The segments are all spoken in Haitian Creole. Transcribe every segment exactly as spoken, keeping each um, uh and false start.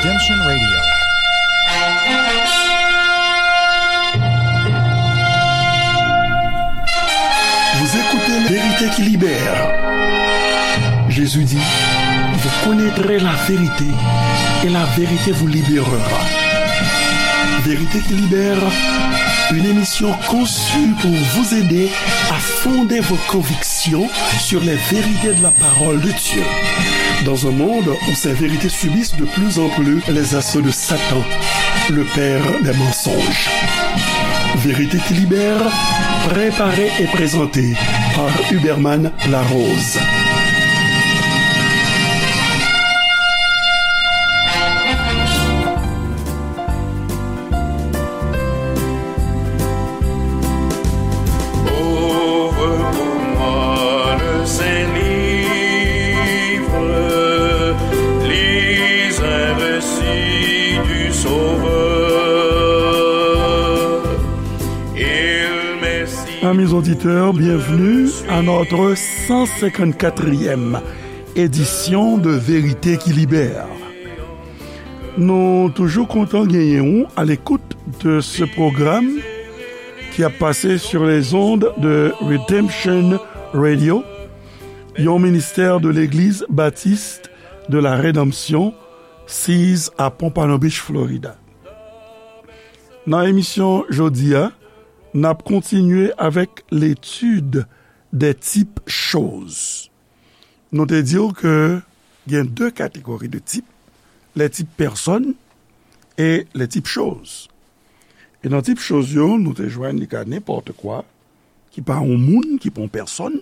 Redemption Radio. Vous écoutez La Vérité qui libère. Jésus dit, vous connaîtrez la vérité et la vérité vous libérera. Vérité qui libère, une émission conçue pour vous aider à fonder vos convictions sur les vérités de la parole de Dieu. Dans un monde où ces vérités subissent de plus en plus les assauts de Satan, le père des mensonges. Vérité qui libère, préparée et présentée par Huberman Larose. Ouvre pour moi le Saint-Livre, lis un récit du Sauveur. Il m'est si Amis auditeurs, bienvenue à notre cent cinquante-quatrième édition de Vérité qui Libère. Nou toujou kontan genyen ou à l'écoute de ce programme qui a passé sur les ondes de Redemption Radio, yon ministè de Legliz Batis de la Redanmsyon, siz a Pompano Beach, Florida. Nan emisyon jodi a, n ap kontinye avèk l'étude des types choses. Nou te di w ke gen de kategori de tip, les types personnes et les types choses. E nan tip choz yo, nou te jwenn li ka nenpòt kwa, ki pa yon moun, ki pa yon pèsòn.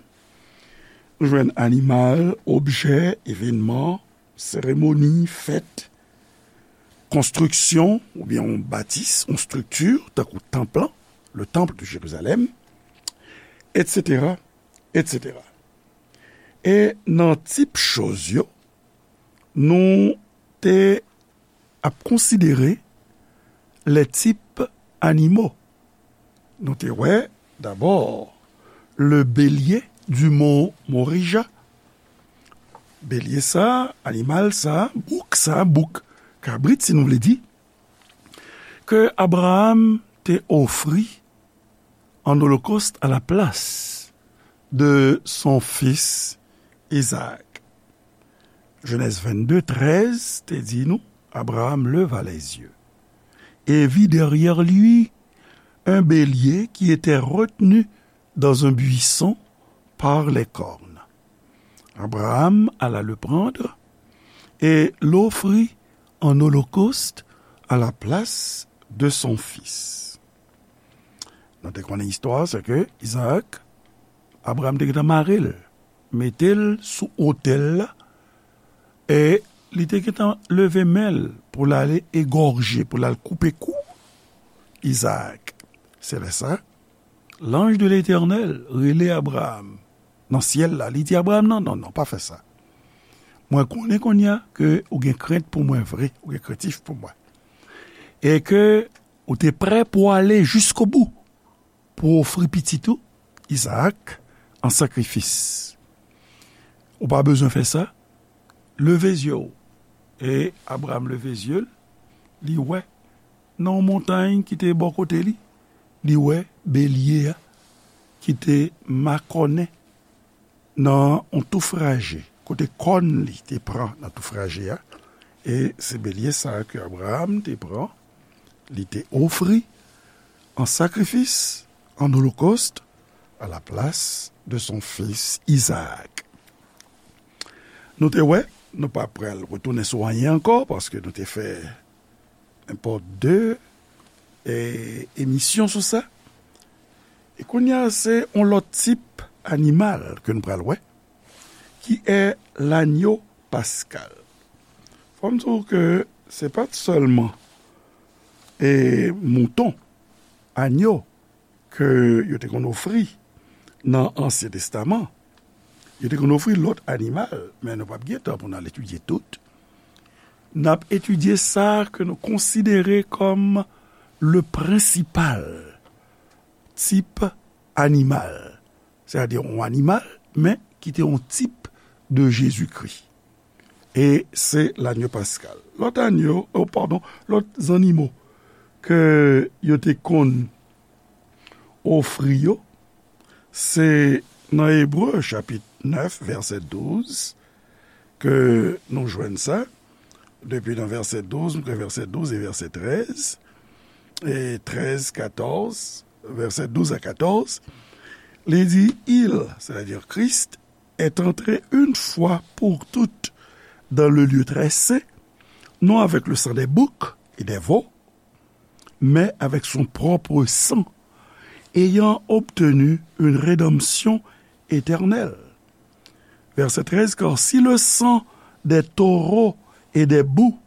Nou jwenn animal, objè, evènman, seremoni, fèt, konstriksyon, oubyen yon batis, yon estrikti, tankou tanp lan, le temple de Jérusalem, et cetera, et cetera. E nan tip choz yo, nou te ap konsidere les types animaux. Nou te wè, dabò, le bélier du mont Morija. Belye sa, animal sa, bouk sa, bouk kabrit, si nou vle di, ke Abraham te ofri an olokòst à la place de son fils Isaac. Genèse vingt-deux treize te di nou, Abraham leva les yeux et vit derrière lui un bélier qui était retenu dans un buisson par les cornes. Abraham alla le prendre et l'offrit en holocauste à la place de son fils. Nou te konnen istwa, se ke Izaak, Abraham te gentan mare l, mete l sou otèl la, e li te gentan leve men l pou l ale egòje, pou l al koupe kou Izaak. Se lè sa, lanj de Letènèl rele Abraham nan syèl la. Li di Abraham, "Non, non, non, pa fè sa. Mwen konnen kounye a ke ou gen krent pou mwen vre, ou gen krentif pou mwen. E ke ou te prè pou ale jiskobou, pou ofri pitit ou, Izaak, an sakrifis. Ou pa bezwen fè sa. Leve zye w." E Abraham leve zye l, li wè nan yon montay ki te bò kote li, li wè belye a ki te makònen nan yon touf raje, kote kòn li te pran nan touf raje a, e se belye sa a ke Abraham te pran, li te ofri an sakrifis, an olokòst, à la place de son fils Isaac. Nou te wè, nou pa pral retounen sou anyen ankò, paske nou te fè nenpòt de, e, emisyon sou sa. E kounye a, se yon lòt tip animal ke nou pral wè, qui est l'agneau pascal. Fò m di w ke se pa t sèlman, e, mouton, anyo, ke yo te konn ofri nan Ansyen Testaman. Yo te konn ofri lòt animal, men nou p ap gen tan pou n al etidye tout. N ap etidye sa ke nou konsidere kòm le prensipal tip animal. Sètadi yon animal, men ki te yon tip de Jezikri. E se lanyo paskal. Lòt anyo, oh, padon, lòt zannimo ke yo te konn ofri yo, se nan Ebre chapit nèf, vèsè douz, ke nou jwenn sa. Depi nan vèsè douz, m kwè vèsè douz e vèsè trèz, e trèz, katòz, vèsè douz a katòz, li di, Il, c'est-à-dire Christ, est entré une fois pour toutes dans le lieu très saint, non avec le sang des boucs et des veaux, mais avec son propre sang, ayant obtenu une rédemption éternelle. Verset treize, Car si le sang des taureaux et des boucs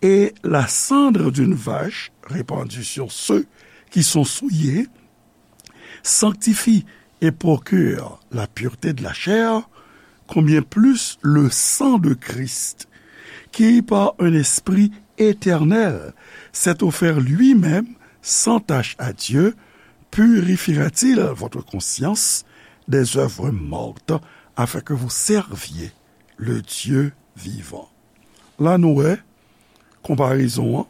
et la cendre d'une vache répandue sur ceux qui sont souillés sanctifie et procure la pureté de la chair, combien plus le sang de Christ, qui par un esprit éternel s'est offert lui-même sans tache à Dieu, purifiera-t-il votre conscience des œuvres mortes, afin que vous serviez le Dieu vivant. La nou wè konparezon an,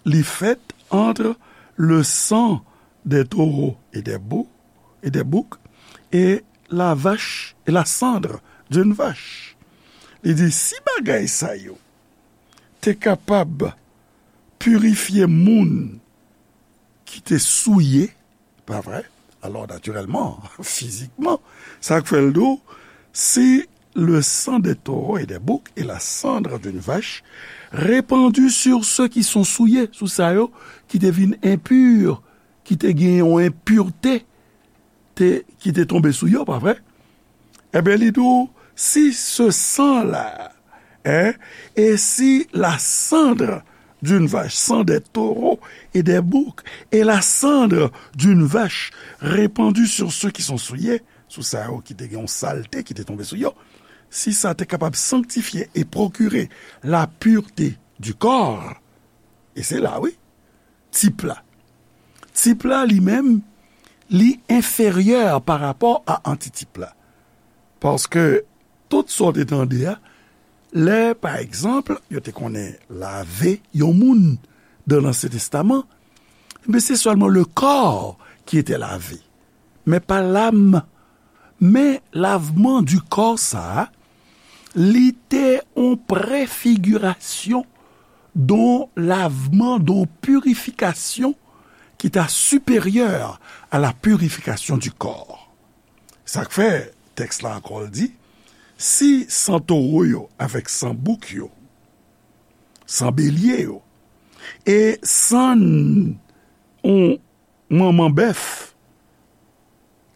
li fèt entre le sang des taureaux et des bou- et des boucs et la vache et la cendre d'une vache. Li di, si bagay sa yo te kapab pirifye moun ki te souye, pa vre? Alò, natirèlman, fizikman, sa k fè l di w, si le sang des taureaux et des boucs et la cendre d'une vache répandu sur ceux qui sont souillés, sou sa yo ki te vin enpi, ki te gen yon enpirte, te, ki te tonbe sou yo, pa vre? Ebyen, li di w, si se san la, hein, et si la cendre d'une vache, sang des taureaux et des boucs, et la cendre d'une vache répandue sur ceux qui sont souillés, sou sa yo ki te gen yon salte ki te tonbe sou yo, si sa te kapab sanctifier et procurer la pureté du corps, e se la, wi, tip la. Tip la, li menm, li enferyè pa rapò a antitip la. Paske tout sa w te tande a, lè, pa egzanp, yo te konnen lave yon moun dan Lansyen Testaman, men se sèlman le corps qui était lavé, men pa lam. Men lavman di kò sa a, li te yon prefigirasyon don lavman, don pirifikasyon ki ta siperyè a la purification du corps. Sa k fè tèks la ankò l di, si san towo yo avèk san bouk yo, san belye yo, e san yon manman bèf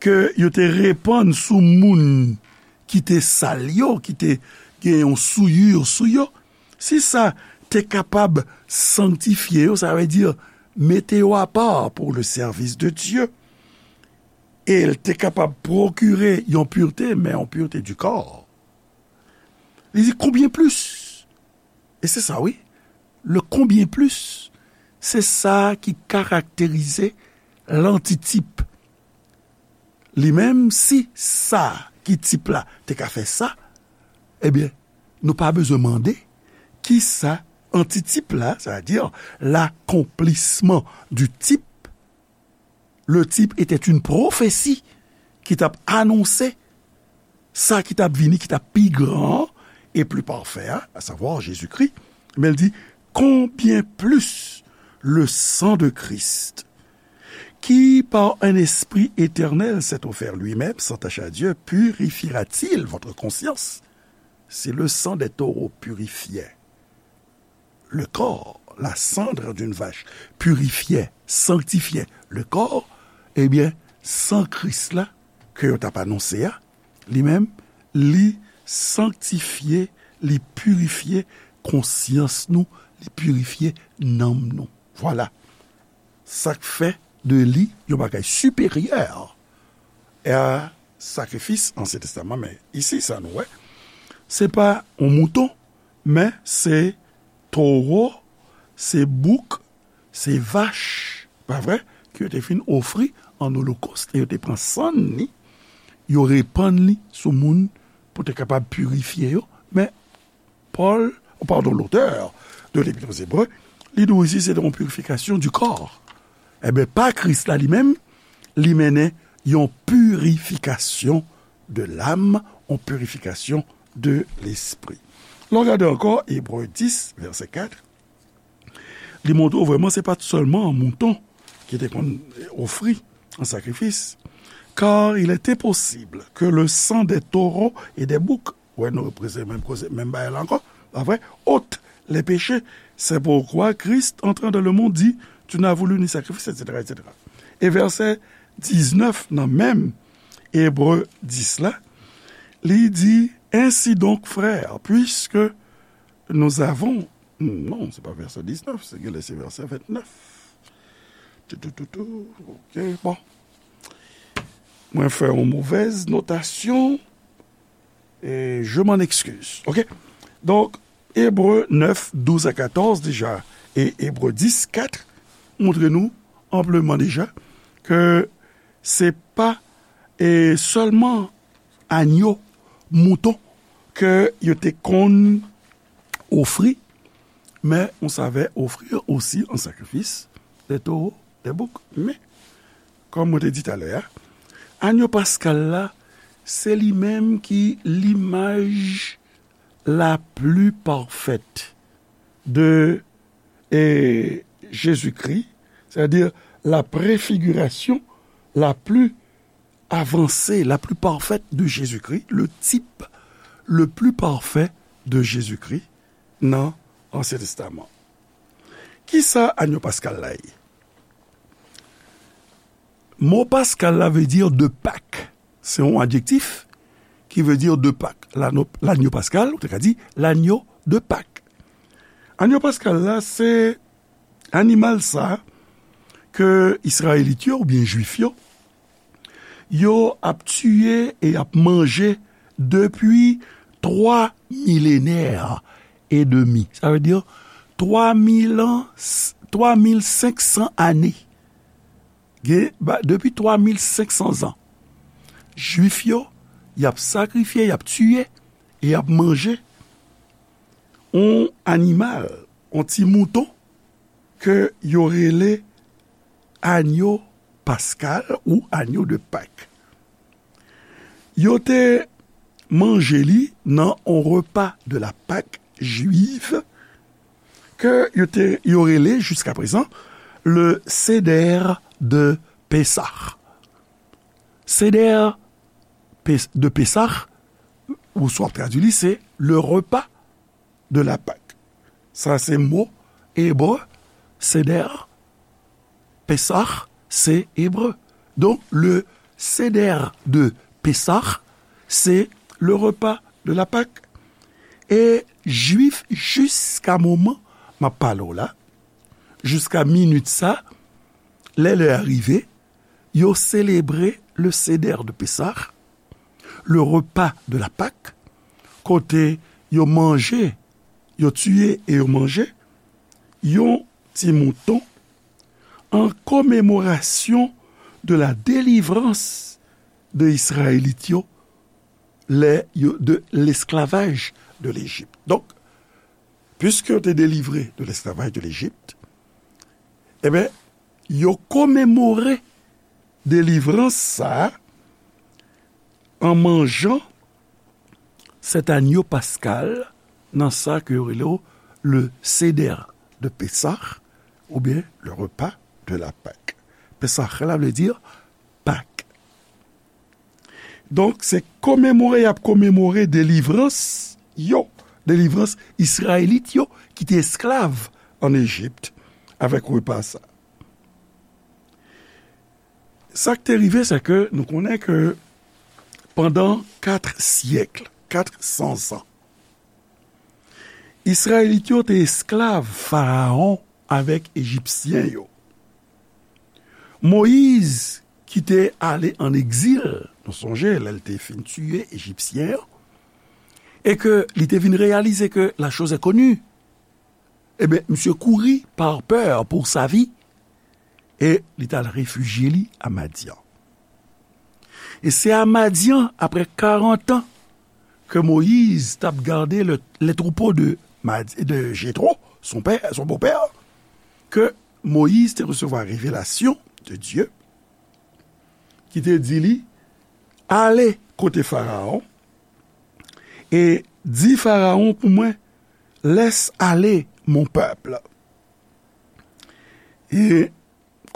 ke yo te repann sou moun ki te sal yo, ki te gen yon souillure sou yo, si sa te kapab sanktifye yo, sa vle di mete yo apa pour le service de Dieu, e l te kapab pwokire yon pirte, men yon pirte du corps. Li di, combien plus? E se sa, wi. Le combien plus, se sa ki karakterize lantitip. Li menm, si sa ki tip la te ka fè sa, ebyen, nou pa bezwen mande ki sa antitip la, c'est-à-dire l'accomplissement du type, le type était une prophétie ki t ap anonse sa ki t ap vini, ki t ap pi gran e pli pafè a, à savoir Jésus-Christ. Men l di, combien plus le sang de Christ, qui par un esprit éternel s'est offert lui-même sans tache à Dieu, purifiera-t-il votre conscience? Si le sang des taureaux purifiait le corps, la cendre d'une vache purifiait, sanctifiait le corps, ebyen, san Kris la, ke yo t ap anonse a, li menm, li sanktifye, li pirifye konsyans nou, li pirifye nanm nou. Vwala. Sa k fè de li yon bagay siperyè a sakrifis Ansyen Testaman. Men isi, sa nou wè, se pa yon mouton, men se towo, se bouk, se vach, pa vre, ke yo te fin ofri an olokòs, e yo te pran sann li, yo repann li sou moun pou te kapab pirifye yo. Men Pòl, padon, lotè de Lepit aux Hébreux, li di w isi se te yon purification du corps. Enben, pa Kris la li menm, li mennen yon purification de l'âme, yon purification de l'esprit. Lè w gade ankò Ebre dis, vèsè kat, li montre w vrèman se pa t sèlman mouton ki te konn ofri an sakrifis, car il est impossible que le sang des taureaux et des boucs, wè, nou reprezante menm koze, menm bagay la ankò, pa vre, ôte les péchés. C'est pourquoi Christ, entrant dans le monde, dit, tu n'as voulu ni sacrifice, et cetera, et cetera. E vèsè diznèf nan menm Ebre dis la, li di, ainsi donc, frères, puisque nous avons, non, se pa vèsè diznèf, se genlè se vèsè vennèf. Tou, tou, tou, tou. Ok, bon. Mwen fè yon movèz notasyon. E je m'en excuse. Ok? Donk, Ebre nèf, douz a katòz deja, e Ebre dis, kat montre nou anpleman deja ke se pa, e, sèlman anyo, mouton ke yo te konn ofri, men ou save ofri osi an sakrifis de towo, de bouk. Men, kòm mwen te di talè a, anyo paskal la, se li menm ki limaj la pli pafèt de, e, Jezikri, sètadi la prefigirasyon la pli avansé, la plus parfaite de Jésus-Christ, le type le plus parfait de Jésus-Christ nan Ansyen Testaman. Kisa anyo paskal la ye? Mo paskal la vle di de Pak. Se yon adjektif ki vle di de Pak. Lano-, lanyo paskal, ou te ka di lanyo de Pak. Anyo paskal la, se animal sa ke Izrayelit yo oubyen Jwif yo, yo ap tiye e ap manje depi twa milenè e demi. Sa vle di twa mil an, twa mil senk san ane. Gen, ba, depi twa mil senk san zan, Jwif yo, y ap sakrifye, y ap tiye, e y ap manje yon animal, yon ti mouton, ke yo rele anyo paskal ou anyo de Pak. Yo te manje li nan yon repa de la Pak jwiv ke yo te, yo rele jiska prezan le Seder de Pesach. Seder Pes-, de Pesach, ou swa tradui li, se le repa de la Pak. Sa se mo ebre, Seder, Pesach, se ebre. Donk, le Seder de Pesach, se le repa de la Pak. E Jwif, jiska moman m ap pale w la, jiska minit sa, lè lè a rive, yo selebre le Seder de Pesach, le repa de la Pak, kote yo manje, yo tiye e yo manje yon ti mouton an komemorasyon de la delivrans de Izrayelit yo, lè yo, de lesklavaj de Lejip. Donk, piske yo te delivre de lesklavaj de Lejip, enben, yo komemore delivrans sa a an manjan sèt anyo paskal nan sa ke yo rele le Seder de Pesach, oubyen le repa de la Pak. Pesach la vle di Pak. Donk, se komemore y ap komemore delivrans yo, delivrans Izrayelit yo ki te esklav ann Ejip avèk repa sa. Sa k te rive, se ke nou konnen ke pandan kat syèk, kat san zan, Izrayelit yo te esklav Farawon avèk Ejipsyen yo. Moyiz, ki te ale ann egzil, nou sonje, lè l te fin tiye Ejipsyen an, e ke li te vin reyalize ke la chose est connue, ebyen, misye kouri par peur pour sa vie, e li t al refijye li a Madyan. E se a Madyan, apre karant an, ke Moyiz t ap gade le, les troupeaux de, Mad- de Jéthro, son père, son beau-père, ke Moyiz te resevwa revelasyon de Dye, ki te di li, ale kote Farawon, e di Farawon pou mwen, laisse aller mon peuple. E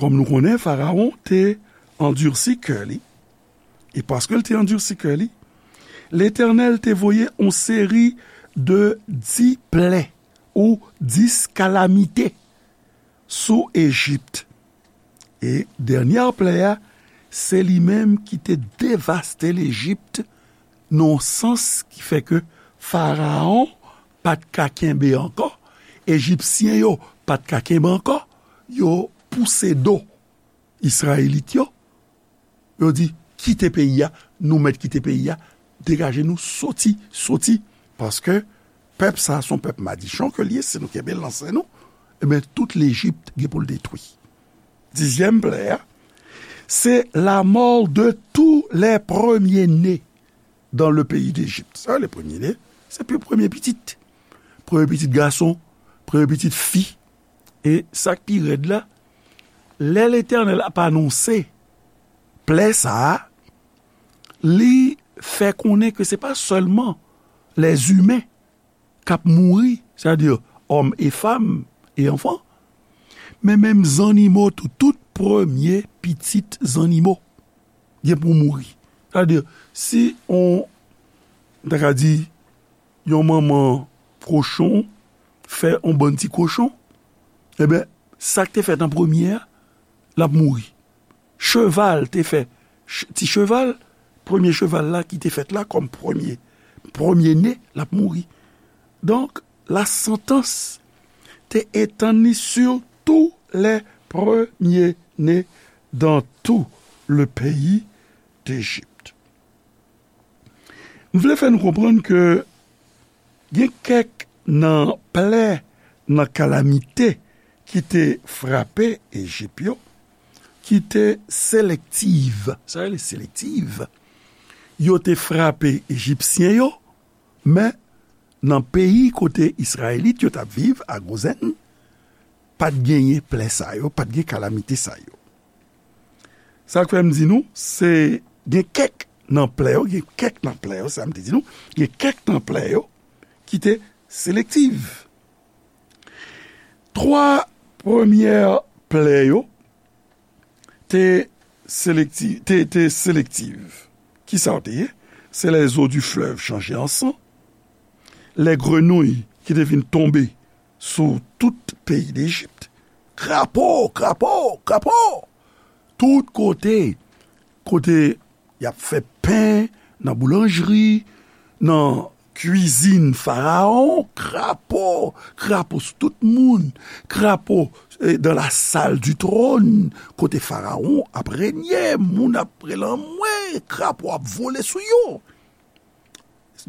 kòm nou konnen, Farawon te andisi kè li. E paske l te andisi kè li, Letènèl te voye yon seri de dis plè ou dis kalamite sou Ejip. E dènyè plè a, se li menm ki te devaste Lejip nan yon sans ki fè ke Farawon pa t ka kenbe ankò, Ejipsyen yo pa t ka kenbe ankò, yo pouse do Izrayelit yo, yo di, kite peyi a, nou mèt kite peyi a, degaje nou, soti, soti, paske pèp sa a se yon pèp madichon ke l ye, si nou kenbe l nan sen nou, ebyen, tout Lejip gen pou l detwi. Dizyèm plè a, c'est la mort de tous les premiers-nés dans le pays d'Égypte. Sa, le premier-né, se pi- premye pitit. Premye pitit gason, premye pitit fi. E sa k pi rèd la, lè Letènèl ap anonse plè sa a, li fè konnen ke se pa sèlman lèzimen k ap mouri, sètadi òm e fanm e anfan, men menm zannimo tou, tout premye pitit zannimo gen pou mouri. Sètadi, si on, m ta ka di, yon manman kochon fè on bann ti kochon, ebyen, sa k te fèt an premye a, l ap mouri. Cheval te fè, ch- ti cheval, premye cheval la ki te fèt la kòm premye, premye ne, l ap mouri. Donk, la santans te etann li sur tous les premiers-nés dans tout le pays d'Égypte. M vle fè nou konprann ke gen kèk nan plè, nan kalamite ki te frape Ejip yo, ki te selektiv. Sa rele selektiv. Yo te frape Ejipsyen yo, men nan peyi kote Izrayelit yo t ap viv, a Gozèn, pa t genyen plè sa yo, pa t gen kalamite sa yo. Sa k fè m di nou, se gen kèk nan plè yo, gen kèk nan plè yo, sa m te di nou, gen kèk nan plè yo ki te selektiv. Twa premyè plè yo te selekti- te, te selektiv. Kisa yo te ye? C'est les eaux du fleuve changées en sang, les grenouilles ki te vin tonbe sou tout peyi Lejip. Krapo, krapo, krapo! Tout kote, kote y ap fè pen, nan boulanjri, nan kwizin Farawon, krapo, krapo sou tout moun, krapo, eh, dans la salle du trône, kote Farawon ap renye, moun ap rele anmwe, krapo ap vole sou yo.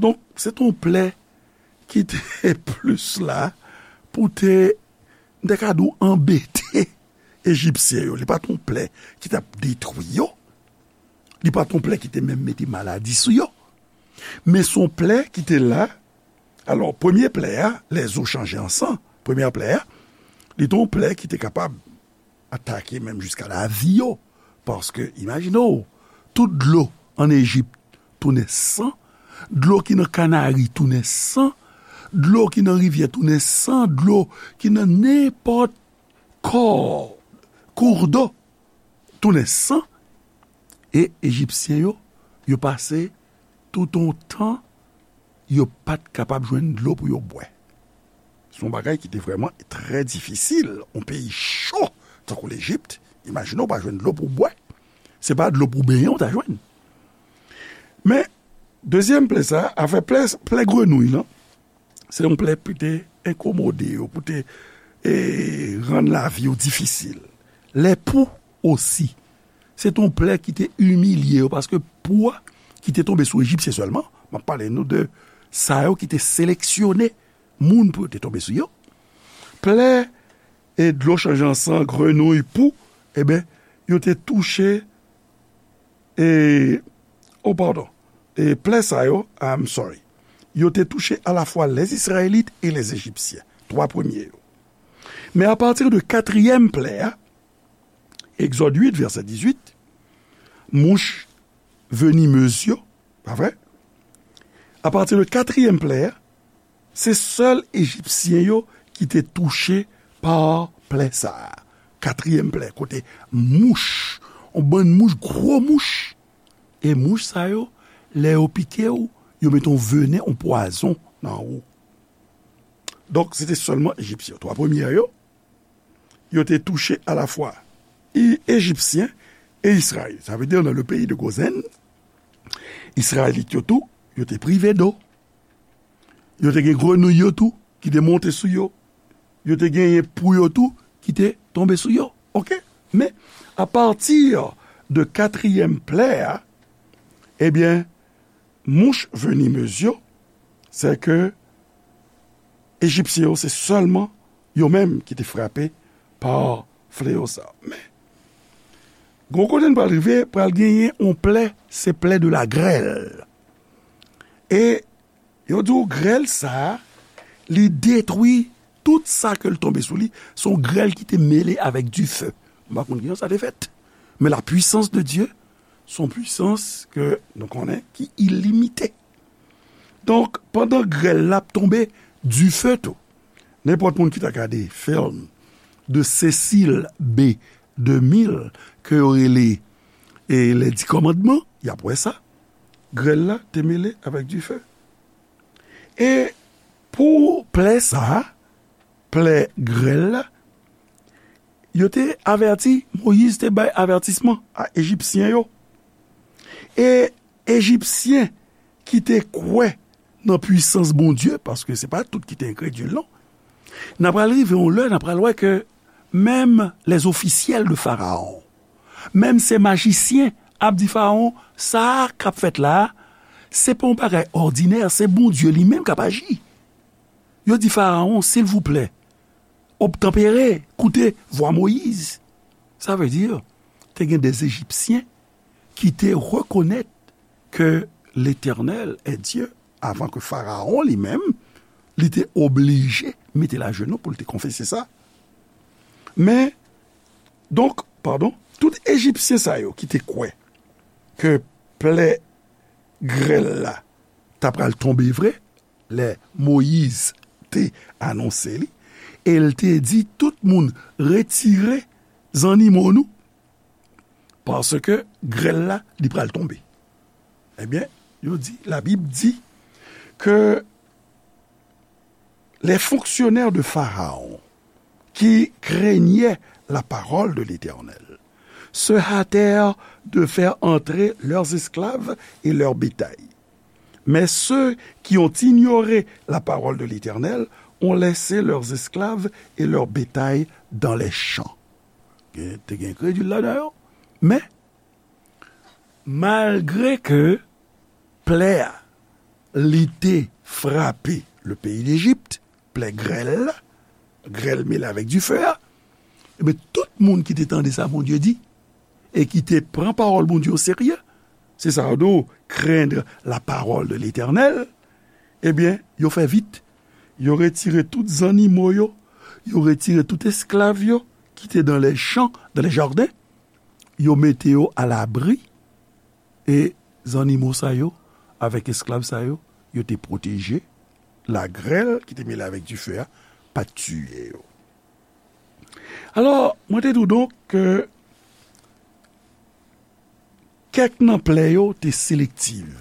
Donk, se t on plè ki te plis la pou te, m te ka di w, anbete Ejipsyen yo. Li pa t on plè ki t ap detwi yo. Li pa t on plè ki te menm mete maladi sou yo. Men se on plè ki te la. Alò, premye plè a, les eaux changées en sang, premyè plè a, li te on plè ki te kapab atake menm jiska lavi yo. Paske, imajine w, tout dlo ann Ejip tounen san, dlo ki nan Kanari tounen san, dlo ki nan rivyè tounen san, dlo ki nan nenpòt kò, kourdo, tounen san, e Ejipsyen yo, yo pase tout on tan, yo pa t kapab jwenn dlo pou yo bwè. Se yon bagay ki te vrèman trè difisil. Yon peyi cho, tankou Lejip, imajine w pa jwenn dlo pou w bwè. Se pa dlo pou benyen w ta jwenn. Men, dezyèm plè sa, afè plè, plè grenouy lan, se yon plè pou te enkomode yo, pou te, e, rann lavi yo difisil. Lèpou osi. Se te yon plè ki te imilye yo, paske pou a ki te tonbe sou Ejipsyen sèlman, m ap pale nou de sa yo ki te seleksyone moun pou yo te tonbe sou yo. Plè e dlo chanje an san, grenouy, pou, eben, yo te touche, e, oh, padon, e plè sa yo, I'm sorry, yo te touche alafwa lèzizrayèlit e lèzejipsyen, twa premye yo. Men apati de katriyèm plè a, Egzòd uit, vèsè dizuit, mouch venimez yo, pa vre? Apati de katriyèm plè a, se sèl Ejipsyen yo ki te touche pa plè sa a. Katriyèm plè, kote mouch, yon bann mouch, gwo mouch. E mouch sa yo, lè yo pike w, yo mete yon venen, yon pwazon nan ou. Donk, se te sèlman Ejipsyen yo. Twa premye yo, yo te touche alafwa Ejipsyen e Izrayèl. Sa vle di, nan le peyi de Gozen, Izrayelit yo tou, yo te prive do. Yo te gen grenouy yo tou ki te monte sou yo. Yo te genyen pou yo tou ki te tonbe sou yo. Oke? Men, apati de katriyèm plè a, ebyen, mouch venimez yo, se ke Ejipsyen yo, se sèlman yo menm ki te frape pa fleyo sa. Men, gon kote n pral rive, pral genyen yon plè, se plè de la grèl. E yo di w grèl sa a, li detwi tout sa ke l tonbe sou li. Se yon grèl ki te mele avèk dife. M pa konn kijan sa te fèt. Men la puissance de Dieu, se yon pwisans ke nou konnen ki ilimite. Donk, pandan grèl la ap tonbe, dife tou. Nenpòt moun ki ta gade fim de Cecil B. DeMille, ke yo rele e Les Dix Commandements, y ap wè sa. Grèl la te mele avèk dife. E pou plè sa a, plè grèl la, yo te avèti, Moyiz te bay avètisman a Ejipsyen yo. E Ejipsyen ki te kwè nan pwisans Bondye, paske se pa tout ki te enkredil, non. N a pral rive yon lè, n a pral wè ke menm les officiels de Pharaon, menm se majisyen ap di Farawon, sa k ap fèt la a, se pa yon bagay òdinè, se Bondye li menm k ap aji. Yo di Farawon, silvouplè, obtanpere, koute vwa Moyiz. Sa vle di, te gen de Ejipsyen ki te rekonèt ke Letènèl est Dieu, avan ke Farawon li menm, li te oblije mete l ajenou pou l te konfese sa. Men, donk, padon, tout Ejipsyen sa yo ki te kwè ke plè grèl la ta pral tonbe vre, lè Moyiz te anonse li, e l te di tout moun, retire zannimo nou, paske grèl la, li pral tonbe. Ebyen, yo di, Labib di ke les fonctionnaires de Pharaon qui craignaient la parole de l'Éternel se hâtèrent de faire entrer leurs esclaves et leur bétail. Mais ceux qui ont ignoré la parole de l'Éternel ont laissé leurs esclaves et leur bétail dans les champs. Gen, te gen enkredil ladan yo, men malgre ke plè a, li te frape le peyi Lejip, plè grèl la, grèl mele avèk dife a, ebyen, tout moun ki te tande sa Bondye di, e ki te pran pawòl Bondye o serye, se sa yo di, craindre la parole de l'Éternel, ebyen, yo fè vit, yo retire tout zannimo yo, yo retire tout esklav yo ki te dans les champs, dans les jardins, yo mete yo alabri, e zannimo sa yo, avèk esklav sa yo, yo te pwoteje, lagrèl ki te mele avèk dife a pa t tiye yo. Alò, mwen te di w donk ke kèk nan plè yo te selektiv.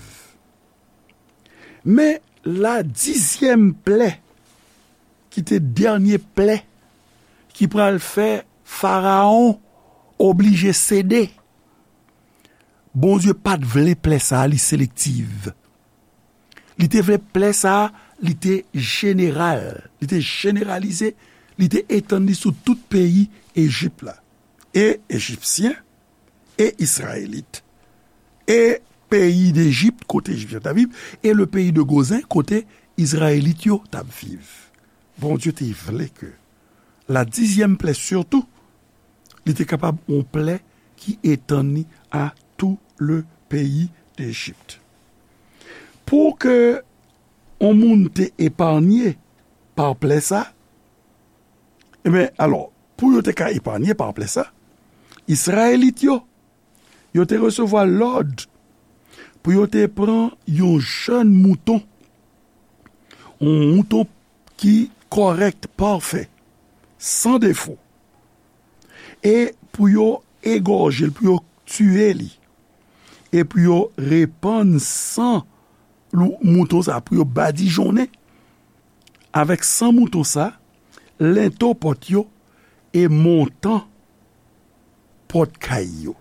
Men la dizyèm plè, ki te dènye plè, ki pral fè Farawon oblije sede. Bondye pa t vle plè sa a, li selektiv. Li te vle plè sa a, li te jeneral, li te jeneralize, li te etann li sou tout peyi Ejip la. E Ejipsyen, e Izrayelit, e peyi Dejip, kote Ejipsyen t ap viv, e le peyi de Gozen, kote Izrayelit yo t ap viv. Bondye te vle ke la dizyèm plè sitou, li te kapab yon plè ki etann li a tout le peyi Dejip. Pou ke yon moun te epanye pa plè sa, ebyen, alò, pou yo te ka epanye pa plè sa, Izrayelit yo, yo te resevwa lòd pou yo te pran yon jèn mouton, yon mouton ki kòrèk, pafè, san defo, e pou yo egòje l, pou yo tiye li, e pou yo repann san lou-, mouton sa, pou yo badijonnen avèk san mouton sa, lento pòt yo e montan pòt kay yo.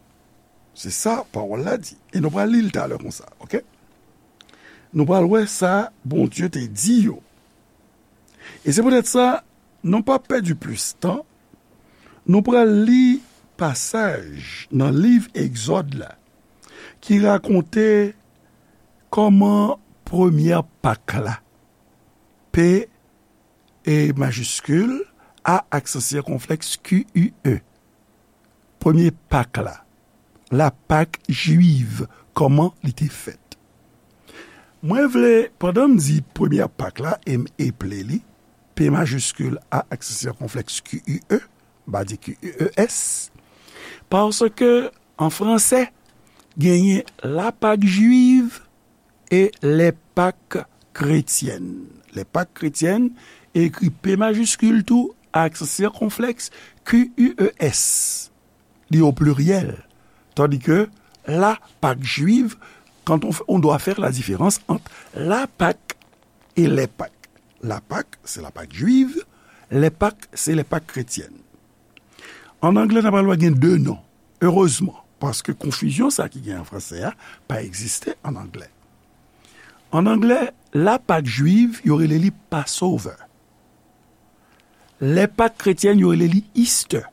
Se sa pawòl la di. E nou pral li l talè konsa, oke? Nou pral wè sa Bondye te di yo. E se poutèt sa, nou pa pèdi plis tan, nou pral li pasaj nan liv Egzòd la ki rakonte kòman premyè Pak la, P e majiskil, A aksan sikonflèks Q U E. Premye Pak la, la Pak jwiv, kòman li te fèt. Mwen vle, pandan m di premyè Pak la, e m eple li, P majiskil, A aksan sikonflèks Q U E, m pa di Q U E S, paske an fransè, genyen la Pak jwiv e les Pâques chrétiennes. Les Pâques chrétiennes, ekri P majiskil tou, aksan sikonflèks, Q U E S. Li o pliryèl. Tandis que la Pâque juive, quand on, on doit faire la différence entre la Pâque et les Pâques. La Pâque, c'est la Pâque juive, les Pâques, c'est les Pâques chrétiennes. An anglè, n ap pral wè gen de non. Erezman, paske konfizyon sa ki gen an fransè a pa egziste an anglè. An anglè, la Pâque juive, yo rele li Passover. Les Pâques chrétiennes, yo rele li Easter.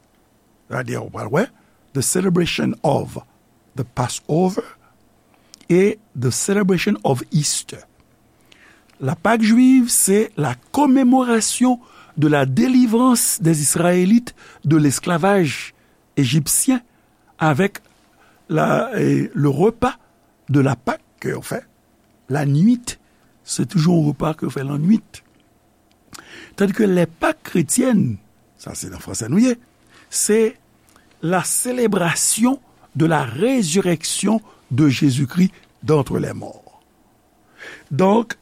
Sa vle di, ou pral wè, the celebration of the Passover et the celebration of Easter. La Pâque juive, c'est la commémoration de la délivrance des Israélites de l'esclavage égyptien avec la, eh, le repas de la Pâque ke yo fè la nuit. Se toujou yon repa ke yo fè la nuit. Tandis que les Pâques chrétiennes, sa se nan fransè nou ye, c'est la célébration de la résurrection de Jésus-Christ d'entre les morts. Donk,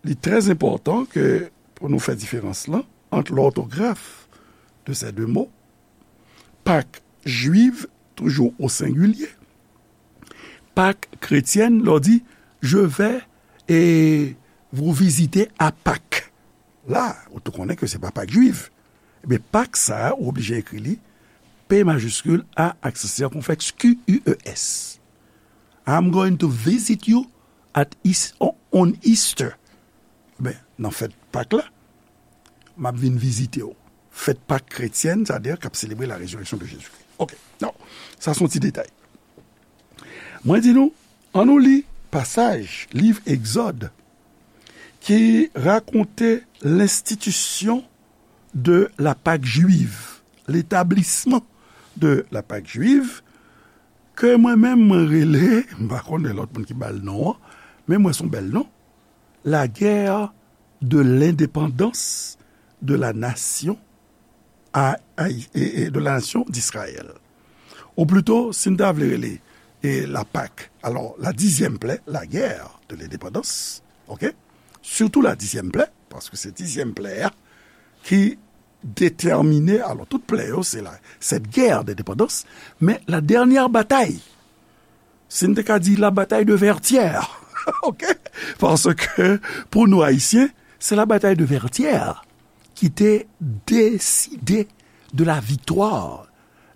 li trè enpòtan ke pou nou fè diferans lan ant lòtograf de ces deux mots, Pâques juives, toujours au singulier, Pâques chrétiennes, lè w di, je vais et vous visiter à Pâques. La, ou tou konnen ke se pa Pâques juives. Ebyen, Pâques sa a, ou oblije ekri li P majiskil, A aksan sikonflèks, Q U E S. I'm going to visit you at Eas-, on, on Easter. Ben, nan fèt Pak la, m ap vin vizite w. Fèt Pak kretyèn, sa vle di k ap selebre la résurrection de Jésus-Christ. Oke, non, sa se yon ti detay. Mwen di nou, ann nou li pasaj liv Egzòd ki rakonte l'institution de la Pâque juive, l'établissement de la Pâque juive, ke mwen menm mwen rele, m pa konnen lòt moun ki ba l non an, men mwen se yon bèl non, la guerre de l'indépendance de la nation a, a, e, e, de la nation d'Israël. Ou plito, si n ta vle rele, e, la Pâque, alò, la dixième plaie, la guerre de l'indépendance, oke? Surtout la dixième plaie, paske se dixième plaie a ki détèmine, alò, tout plè yo, se la, cette guerre d'indépendance, men la dernière bataille, si n te ka di la bataille de Vertières, oke? Paske, pou nou Ayisyen, se la bataille de Vertières ki te deside de la victoire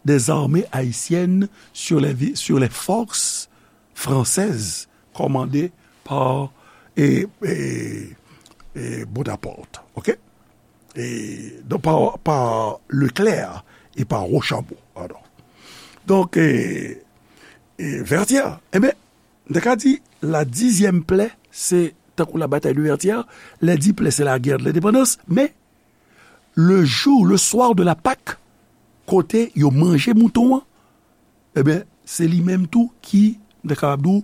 des armées haïtiennes sur les vi-, sur les forces françaises commandées par, e, e, e, Bonaparte, oke? E, donk, pa, pa Leclerc e pa Rochambeau, padon. Donk, e, e, Vertières, ebyen, m te ka di, la dixième plaie, se tankou la bataille de Vertières, les dix plaies, c'est la guerre de l'indépendance, men le jour, le soir de la Pâque, kote yo manje mouton an, ebyen, se li menm tou ki, m te kapab di w,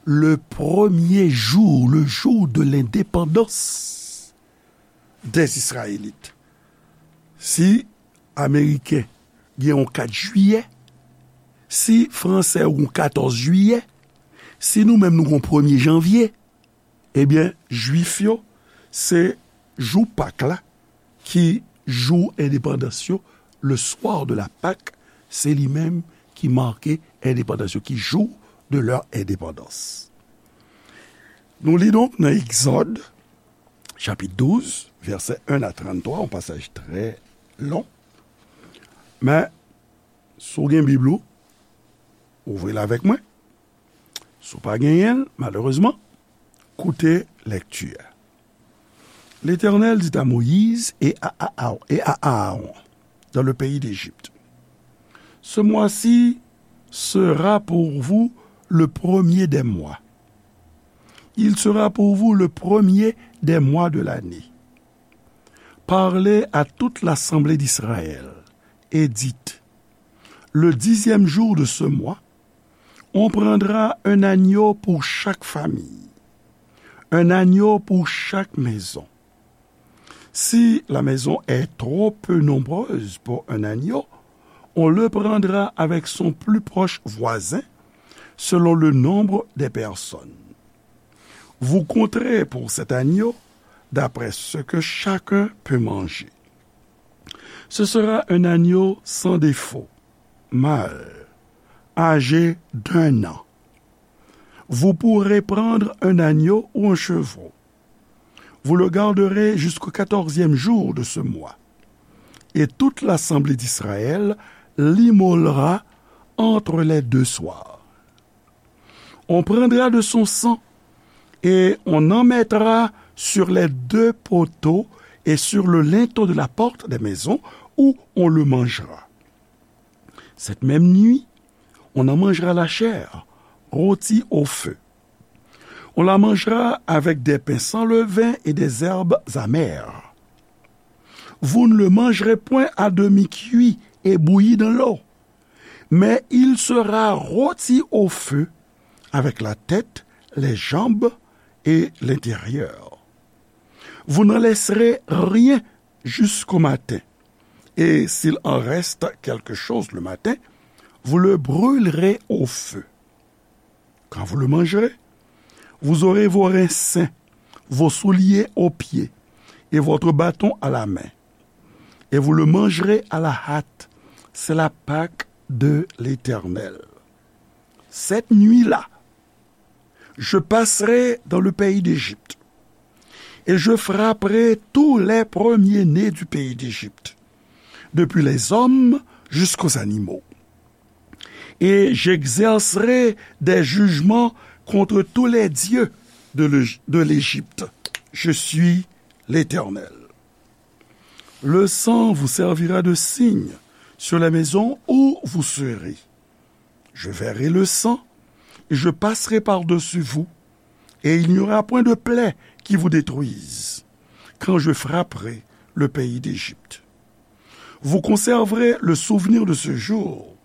le premier jour, le jour de l'indépendance des Israélites. Si Ameriken gen yon kat jiyè, si Fransè yon katòz jiyè, si nou menm nou gen yon premye janvye, ebyen, Jwif yo, se jou Pak la ki jou endepandans yo, le soir de la Pâque, se li menm ki make endepandans yo, ki jour de leur indépendance. Nou li donk nan Egzòd, chapit douz, vèsè en a tranntwa, yon pasaj trè lon. Men, si w gen Bib ou, ouvri l avèk mwen. Si w pa genyen l, malerezman, koute lèkti a. L'Éternel dit à Moïse et à Aa- et à Aaron dans le pays d'Égypte, ce mois-ci sera pour vous le premier des mois. Il sera pour vous le premier des mois de l'année. Parlez à toute l'assemblée d'Israël et dites, le dixième jour de ce mois, on prendra un agneau pour chaque famille, un agneau pour chaque maison. Si la maison est trop peu nombreuse pour un agneau, on le prendra avec son plus proche voisin, selon le nombre des personnes. Vous compterez pour cet agneau d'après ce que chacun peut manger. Ce sera un agneau sans défaut, mâle, âgé d'un an. Vous pourrez prendre un agneau ou un chevreau. Vous le garderez jusqu'au quatorzième jour de ce mois. Et toute l'assemblée d'Israël l'immolera entre les deux soirs. On prendra de son sang et on en mettra sur les deux poteaux et sur le linteau de la porte des maisons où on le mangera. Cette même nuit, on en mangera la chair, rôtie au feu. On la mangera avec des pains sans levain et des herbes amères. Vous ne le mangerez point à demi cuit et bouilli dans l'eau, mais il sera rôti au feu avec la tête, les jambes et l'intérieur. Vous n'en laisserez rien jusqu'au matin, et s'il en reste quelque chose le matin, vous le brûlerez au feu. Quand vous le mangerez, vous aurez vos reins sains, vos souliers aux pieds et votre bâton à la main, et vous le mangerez à la hâte. C'est la Pâque de l'Éternel. Cette nuit-là, je passerai dans le pays d'Égypte, et je frapperai tous les premiers-nés du pays d'Égypte, depuis les hommes jusqu'aux animaux. Et j'exercerai des jugements contre tous les dieux de l'Égy- de l'Égypte. Je suis l'Éternel. Le sang vous servira de signe sur la maison où vous serez. Je verrai le sang et je passerai par-dessus vous, et il n'y aura point de plaie qui vous détruise, quand je frapperai le pays d'Égypte. Vous conserverez le souvenir de ce jour,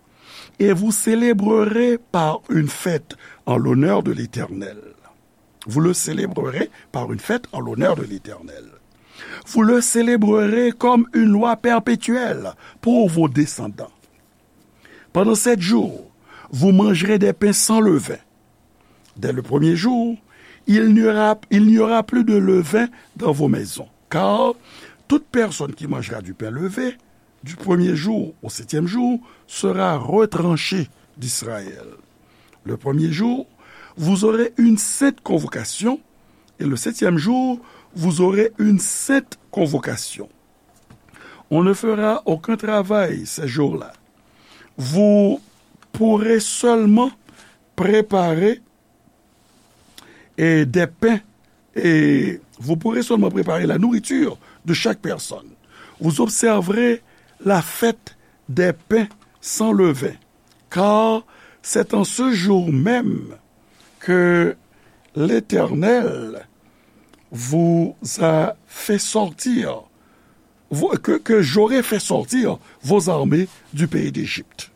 et vous célébrerez par une fête en l'honneur de l'Éternel. Vous le célébrerez par une fête en l'honneur de l'Éternel. Vous le célébrerez comme une loi perpétuelle pour vos descendants. Pendant sept jours, vous mangerez des pains sans levain. Dès le premier jour, il n'y aura, il n'y aura plus de levain dans vos maisons, car toute personne qui mangera du pain levé du premier jour au septième jour sera retranchée d'Israël. Le premier jour, vous aurez une sainte convocation, et le septième jour, vous aurez une sainte convocation. On ne fera aucun travail ces jours-là. Vous pourrez seulement préparer et des pains, et vous pourrez seulement préparer la nourriture de chaque personne. Vous observerez la fête des pains sans levain, car c'est en ce jour même que l'Éternel vous a fait sortir, vous- que, que j'aurai fait sortir vos armées du pays d'Égypte.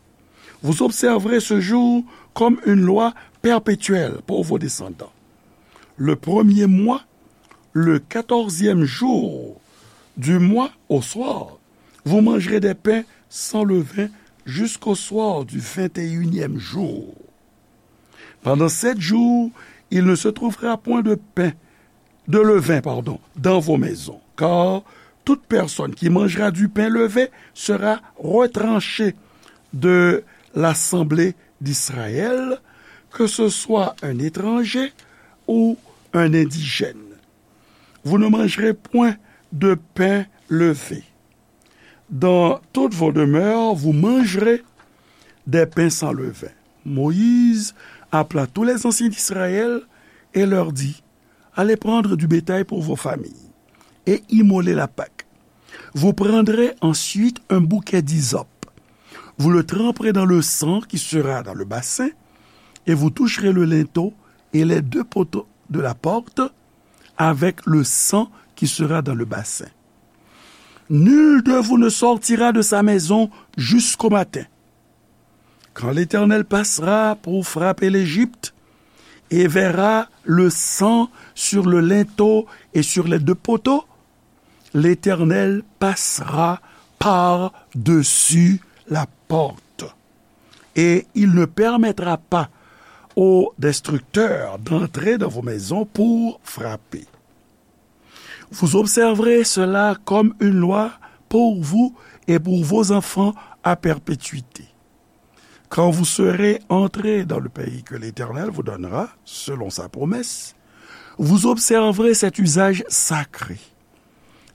Vous observerez ce jour comme une loi perpétuel pour vos descendants. Le premier mois, le quatorzième jour du mois au soir, vous mangerez des pains sans levain jusqu'au soir du vingt et unième jour. Pendant sept jours, il ne se trouvera point de pain, de levain, pardon, dans vos maisons, car toute personne qui mangera du pain levé sera retranchée de l'assemblée d'Israël, que ce soit un étranger ou un indigène. Vous ne mangerez point de pain levé. Dans toutes vos demeures, vous mangerez des pains sans levain. Moïse appela tous les anciens d'Israël et leur dit, allez prendre du bétail pour vos familles et immolez la Pâque. Vous prendrez ensuite un bouquet d'hysope. Vous le tremperez dans le sang qui sera dans le bassin et vous toucherez le linteau et les deux poteaux de la porte avec le sang qui sera dans le bassin. Nul de vous ne sortira de sa maison jusqu'au matin. Quand l'Éternel passera pour frapper l'Égypte et verra le sang sur le linteau et sur les deux poteaux, l'Éternel passera par-dessus la porte et il ne permettra pas au destructeur d'entrer dans vos maisons pour frapper. Vous observerez cela comme une loi pour vous et pour vos enfants à perpétuité. Quand vous serez entrés dans le pays que l'Éternel vous donnera, selon sa promesse, vous observerez cet usage sacré.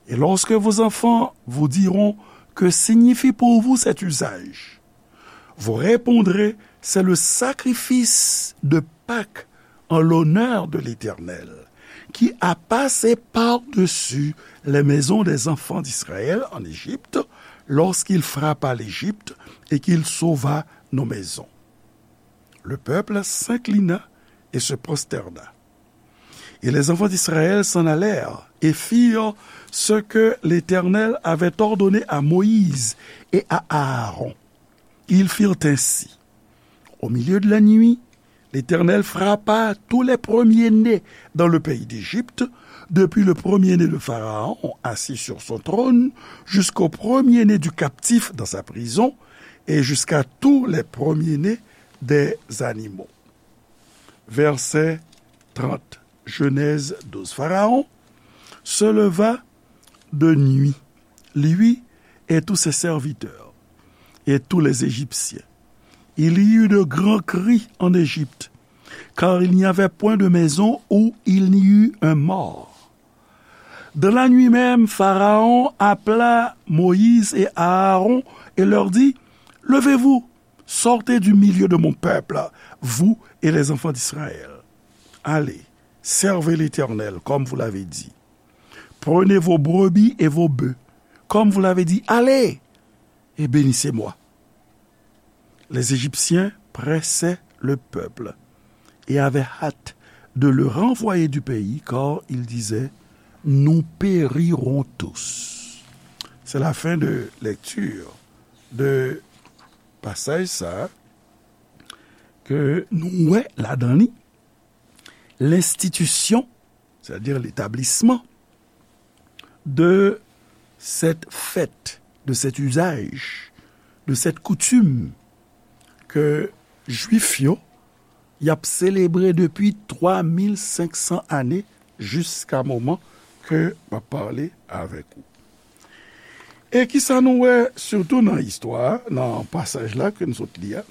Et lorsque vos enfants vous diront, que signifie pour vous cet usage ? Vous répondrez, c'est le sacrifice de Pâques en l'honneur de l'Éternel, qui a passé par-dessus les maisons des enfants d'Israël en Égypte, lorsqu'il frappa l'Égypte et qu'il sauva nos maisons. Le peuple s'inclina et se prosterna. Et les enfants d'Israël s'en allèrent et firent ce que l'Éternel avait ordonné à Moïse et à Aaron. Ils firent ainsi. Au milieu de la nuit, l'Éternel frappa tous les premiers-nés dans le pays d'Égypte, depuis le premier-né de Pharaon assis sur son trône, jusqu'au premier-né du captif dans sa prison, et jusqu'à tous les premiers-nés des animaux. Verset trente. Genèse douze. Pharaon se leva de nuit, lui et tous ses serviteurs, et tous les Égyptiens. Il y eut de grands cris en Égypte, car il n'y avait point de maison où il n'y eût un mort. Dans la nuit même, Pharaon appela Moïse et Aaron et leur dit, levez-vous, sortez du milieu de mon peuple, vous et les enfants d'Israël. Allez, servez l'Éternel comme vous l'avez dit. Prenez vos brebis et vos bœufs, comme vous l'avez dit. Allez, et bénissez-moi. Les Égyptiens pressaient le peuple et avaient hâte de le renvoyer du pays, car ils disaient, nous périrons tous. C'est la fin de lecture de pasaj sa ke nou wè ladan li, lenstitisyon, sètadi letablisman de cette fête, de cet usage, de cette coutume ke Jwif yo y ap selebre depi twa mil senk san ane, jiska moman ke m ap pale avèk ou. E kisa nou wè sitou nan istwa a, nan pasaj la ke n sot li a?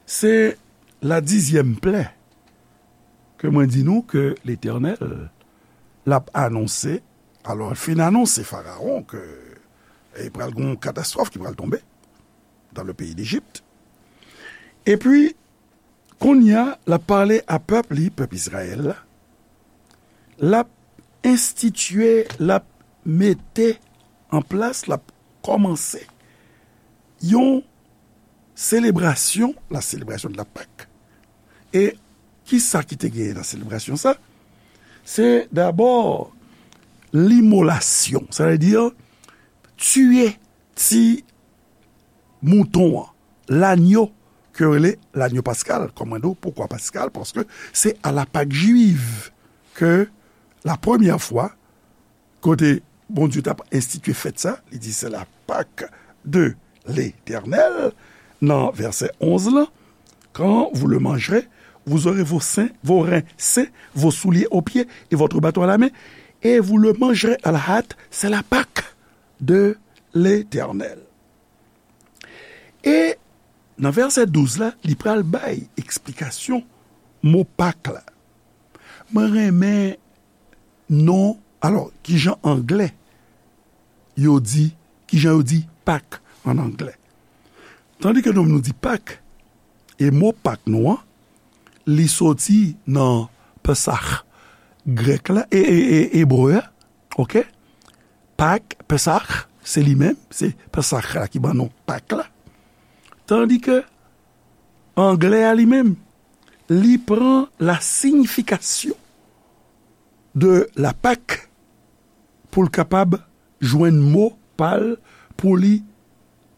Se la dizyèm plè ke mwen di nou ke Letènèl l ap anonse. Alò, l fin anonse Farawon ke, e, pral gen yon katastwòf ki pral tonbe dans le pays d'Égypte. Epi, kounye a, l ap pale a pèp li, pèp Izrayèl la. L ap enstitye, l ap mete an plas, l ap kòmanse yon selebrasyon, la célébration de la Pâque. E kisa ki te genyen nan selebrasyon sa? Se dabò limolasyon, sa vle di tiye ti mouton an, lanyo ke yo rele lanyo paskal. Kòm mwen di w, poukwa paskal? Paske se a la Pak jwiv ke la premyè fwa kote Bondye t ap enstitye fèt sa, li di, c'est la Pâque de l'Éternel, nan vèsè onz lan, quand vous le mangerez, vous aurez vos seins, vos reins sains, vos souliers aux pieds et votre bâton à la main, et vous le mangerez à la hâte, c'est la Pâque de l'Éternel. E nan vèsè douz la, li pral bay eksplikasyon mo Pak la. Mwen renmen non, alò, kijan anglè yo di, kijan yo di Pak an anglè. Tandike nou, nou di Pak, e mo Pak nou an, li soti nan Pesach grèk la, e, e, e, ebre a, oke? Pak, Pesach, se li menm, se Pesach la ki ban nou Pak la. Tandike anglè a li menm, li pran la signification de la Pâque pou l kapab jwenn mo pa l pou li,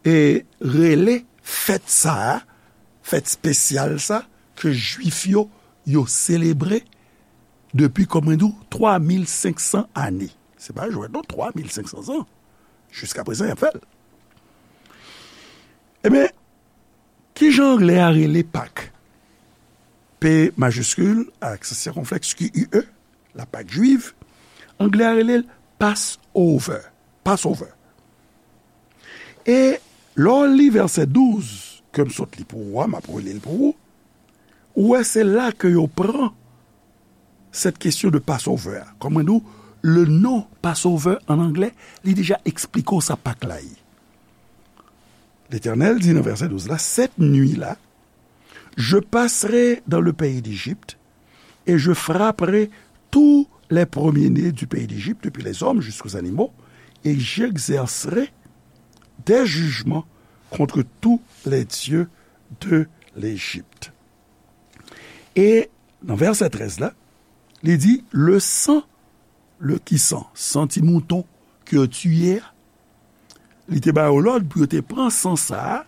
e, rele fèt sa a, fèt espesyal sa, ke Jwif yo, yo selebre depi, kòm mwen di w, twa mil senk san ane. Se pa jwèt non, twa mil senk san zan. Jiska prezan, y ap fè l. Ebyen, kijan anglè a rele Pak? P majiskil, aksan sikonflèks, Q U E, la Pak jwiv. Anglè a rele l Passover. Passover. E lè w li vèsè douz, ke m sot li pou ou a, m ap reli l pou ou, ou wè se la ke yo pran cette question de Passover a. Kòm mwen di w, le nom Passover an anglè, li deja eksplike w sa Pak la ye. Letènèl di nan vèsè douz la, cette nuit-là, je passerai dans le pays d'Égypte et je frapperai tous les premiers-nés du pays d'Égypte, depuis les hommes jusqu'aux animaux, et j'exercerai des jugements contre tous les dieux de l'Égypte. E nan vèsè trèz la, li di, le sang, le ki san, san ti mouton ke yo tiye a, li te ba yo lòd pou yo te pran san sa a,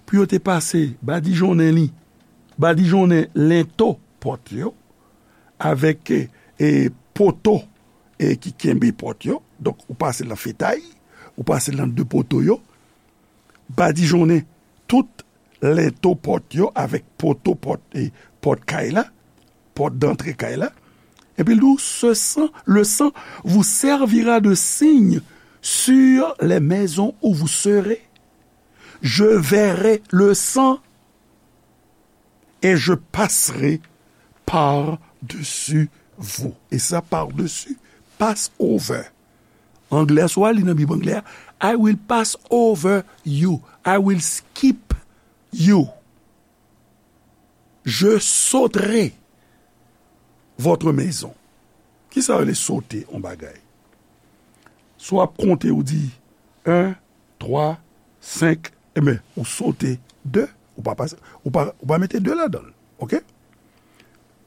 pou yo te pase badijonnen li, badijonnen lento pòt yo, avèk, e, e, poto, e, ki kenbe pòt yo. Donk, ou pase l nan fetay, ou pase l nan de poto yo, badijonnen tout lento pòt yo avèk poto pòt, e, pòt kay la, pòt dantre kay la. Epi l di w, ce sang, le sang vous servira de signe sur les maisons où vous serez. Je verrai le sang et je passerai par-dessus vous. E sa, par-dessus, Passover. Anglè, si w al li nan Bib anglè a, I will pass over you. I will skip you. Je sauterai votre maison. Kisa yo rele sote yon bagay? Si w ap konte, ou di en, twa, senk, enben, ou sote de, ou pa pase, ou pa, ou pa mete de ladan l, oke?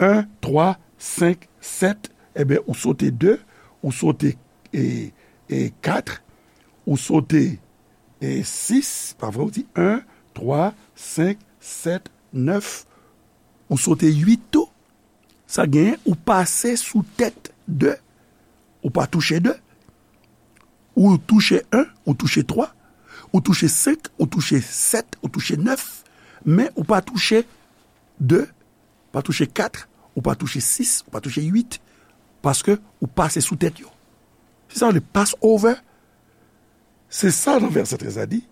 En, twa, senk, sèt, enben, ou sote de, ou sote, e, e, kat, ou sote, e, sis, pa vre, ou di en, twa, senk, sèt, nèf, ou sote uit tou. Sa genyen, ou pase sou tèt de, ou pa touche de. Ou touche en, ou touche twa, ou touche senk, ou touche sèt, ou touche nèf, men ou pa touche de, pa touche kat, ou pa touche sis, ou pa touche uit, paske ou pase sou tèt yo. Se sa yo rele Passover. Se sa nan vèsè trèz la di,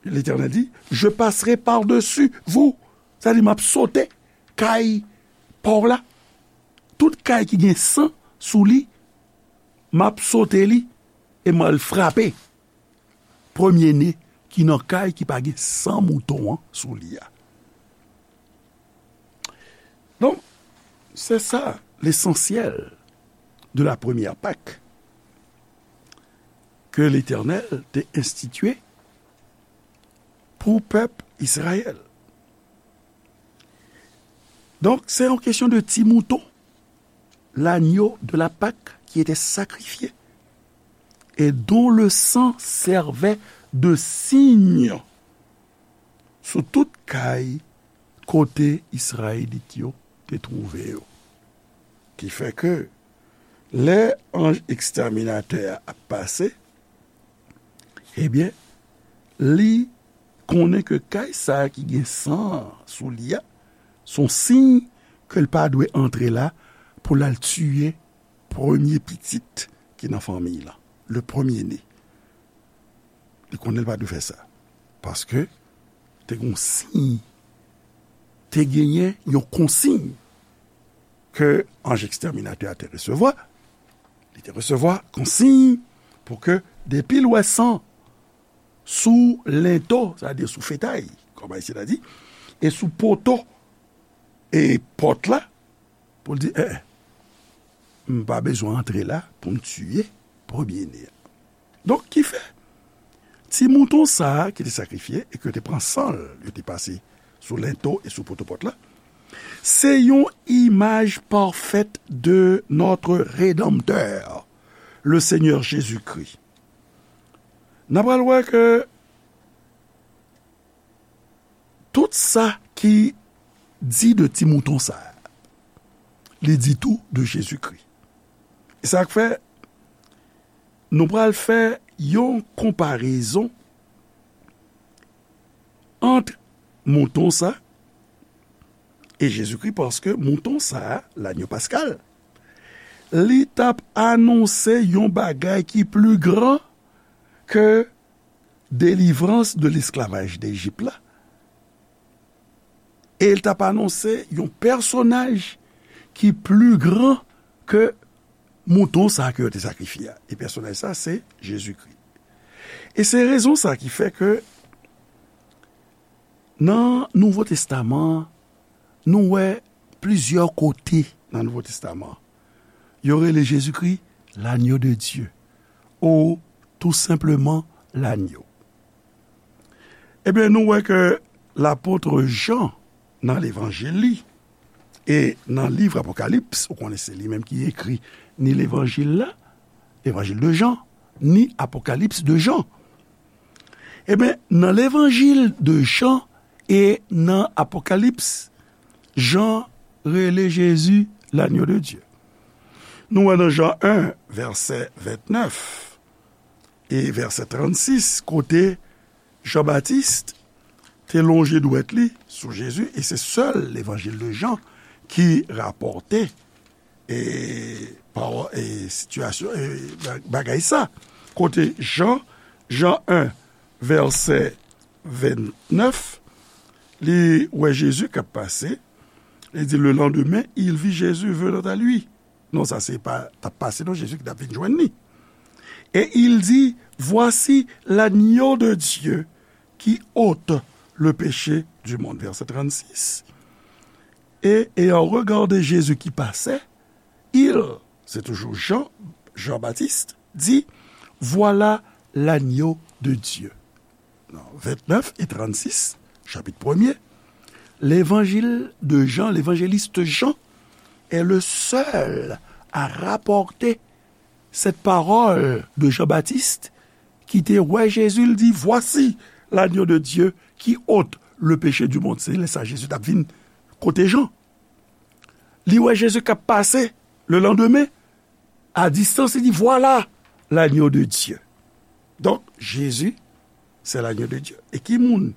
Letènèl di, je passerai par-dessus vous. Sa di, m ap sote kay pa w la. Tout kay ki gen san sou li, m ap sote li e m al frape premye ne ki nan kay ki pa gen san mouton an sou li a. Donk, se sa lesansyèl de la première Pâque ke Letènèl te enstitye pou pèp Izrayèl. Donk, se yon kesyon de ti mouton, l'agneau de la Pâque qui était sacrifié et dont le sang servait de signe sou tout kay kote Izrayelit yo te twouve yo. Ki fè ke lè anj ekstèminatè a ap pase, ebyen, li konnen ke kay sa a ki gen san an sou li a, se yon siy ke l pa dwe antre la pou l al tiye premye pitit ki nan fanmiy lan, le premier-né. Li konnen l pa dwe fè sa. Paske te gen yon siy, te genyen yon konsiy ke anj ekstèminatè a te resevwa. Li te resevwa konsiy pou ke depi l wè san sou lento, sètadi sou fetay, kòm Ayisyen ta di, e sou poto e pòt la, pou l di, eh, eh, m pa bezwen antre la pou m tiye premye-né a. Donk, ki fè, ti mouton sa a ki te sakrifye e ke yo te pran san l, yo te pase sou lento e sou poto pòt la, se yon imaj pafèt de notre Rédempteur, le Seigneur Jésus-Christ. N a pral wè ke tout sa ki di de ti mouton sa a, li di tou de Jezikri. E sa k fè nou pral fè yon konparezon ant mouton sa e Jezikri, paske mouton sa a, lanyo paskal, li t ap anonse yon bagay ki pli gran ke delivrans de lesklavaj Lejip la. E l t ap anonse yon pèsonaj ki pli gran ke mouton sa a ke yo te sakrifye a. E pèsonaj sa a, se Jezikri. E se rezon sa a ki fè ke nan Nouvo Testaman an, nou wè plizyè kote nan Nouvo Testaman an, yo rele Jezikri l'agneau de Dieu, ou tou senpleman lanyo. Ebyen, nou wè ke lapot Jan, nan levanjil li, e nan liv Apokalips, ou konnen se li menm ki ekri ni levanjil la, levanjil de Jan, ni Apokalips de Jan. Ebyen, nan levanjil de Jan e nan Apokalips, Jan rele Jezi l'agneau de Dieu. Nou wè nan Jan en, vèsè ventnèf e vèsè trannsis, kote Jan Batis te lonje dwèt li sou Jezi, e se sèl levanjil de Jan ki rapòte e pawò-, e sitiyasyon, e ba-, bagay sa. Kote Jan, Jan en, vèsè ventnèf, li wè Jezi k ap pase, li di, le lendemain, il vit Jésus venant à lui. Non, sa se pa t ap pase, non, Jezi ki t ap vin jwenn li. Et il dit, voici l'agneau de Dieu qui ôte le péché du monde. Vèsè trannsis. Et ayant regardé Jésus qui passait, il, se toujou Jan, Jan Batis, di, voilà l'agneau de Dieu. Non, ventnèf e trannsis, chapit premye, levanjil de Jan, levanjelis Jan, est le seul à rapporter cette parole de Jean-Baptiste ki te wè Jezi, l di, voici l'agneau de Dieu qui ôte le péché du monde. Se lè sa Jezi t ap vin kote Jan. Li wè Jezi k ap pase le lendemain, a distans, li di, voilà l'agneau de Dieu. Donk, Jezi, se l'agneau de Dieu. E ki moun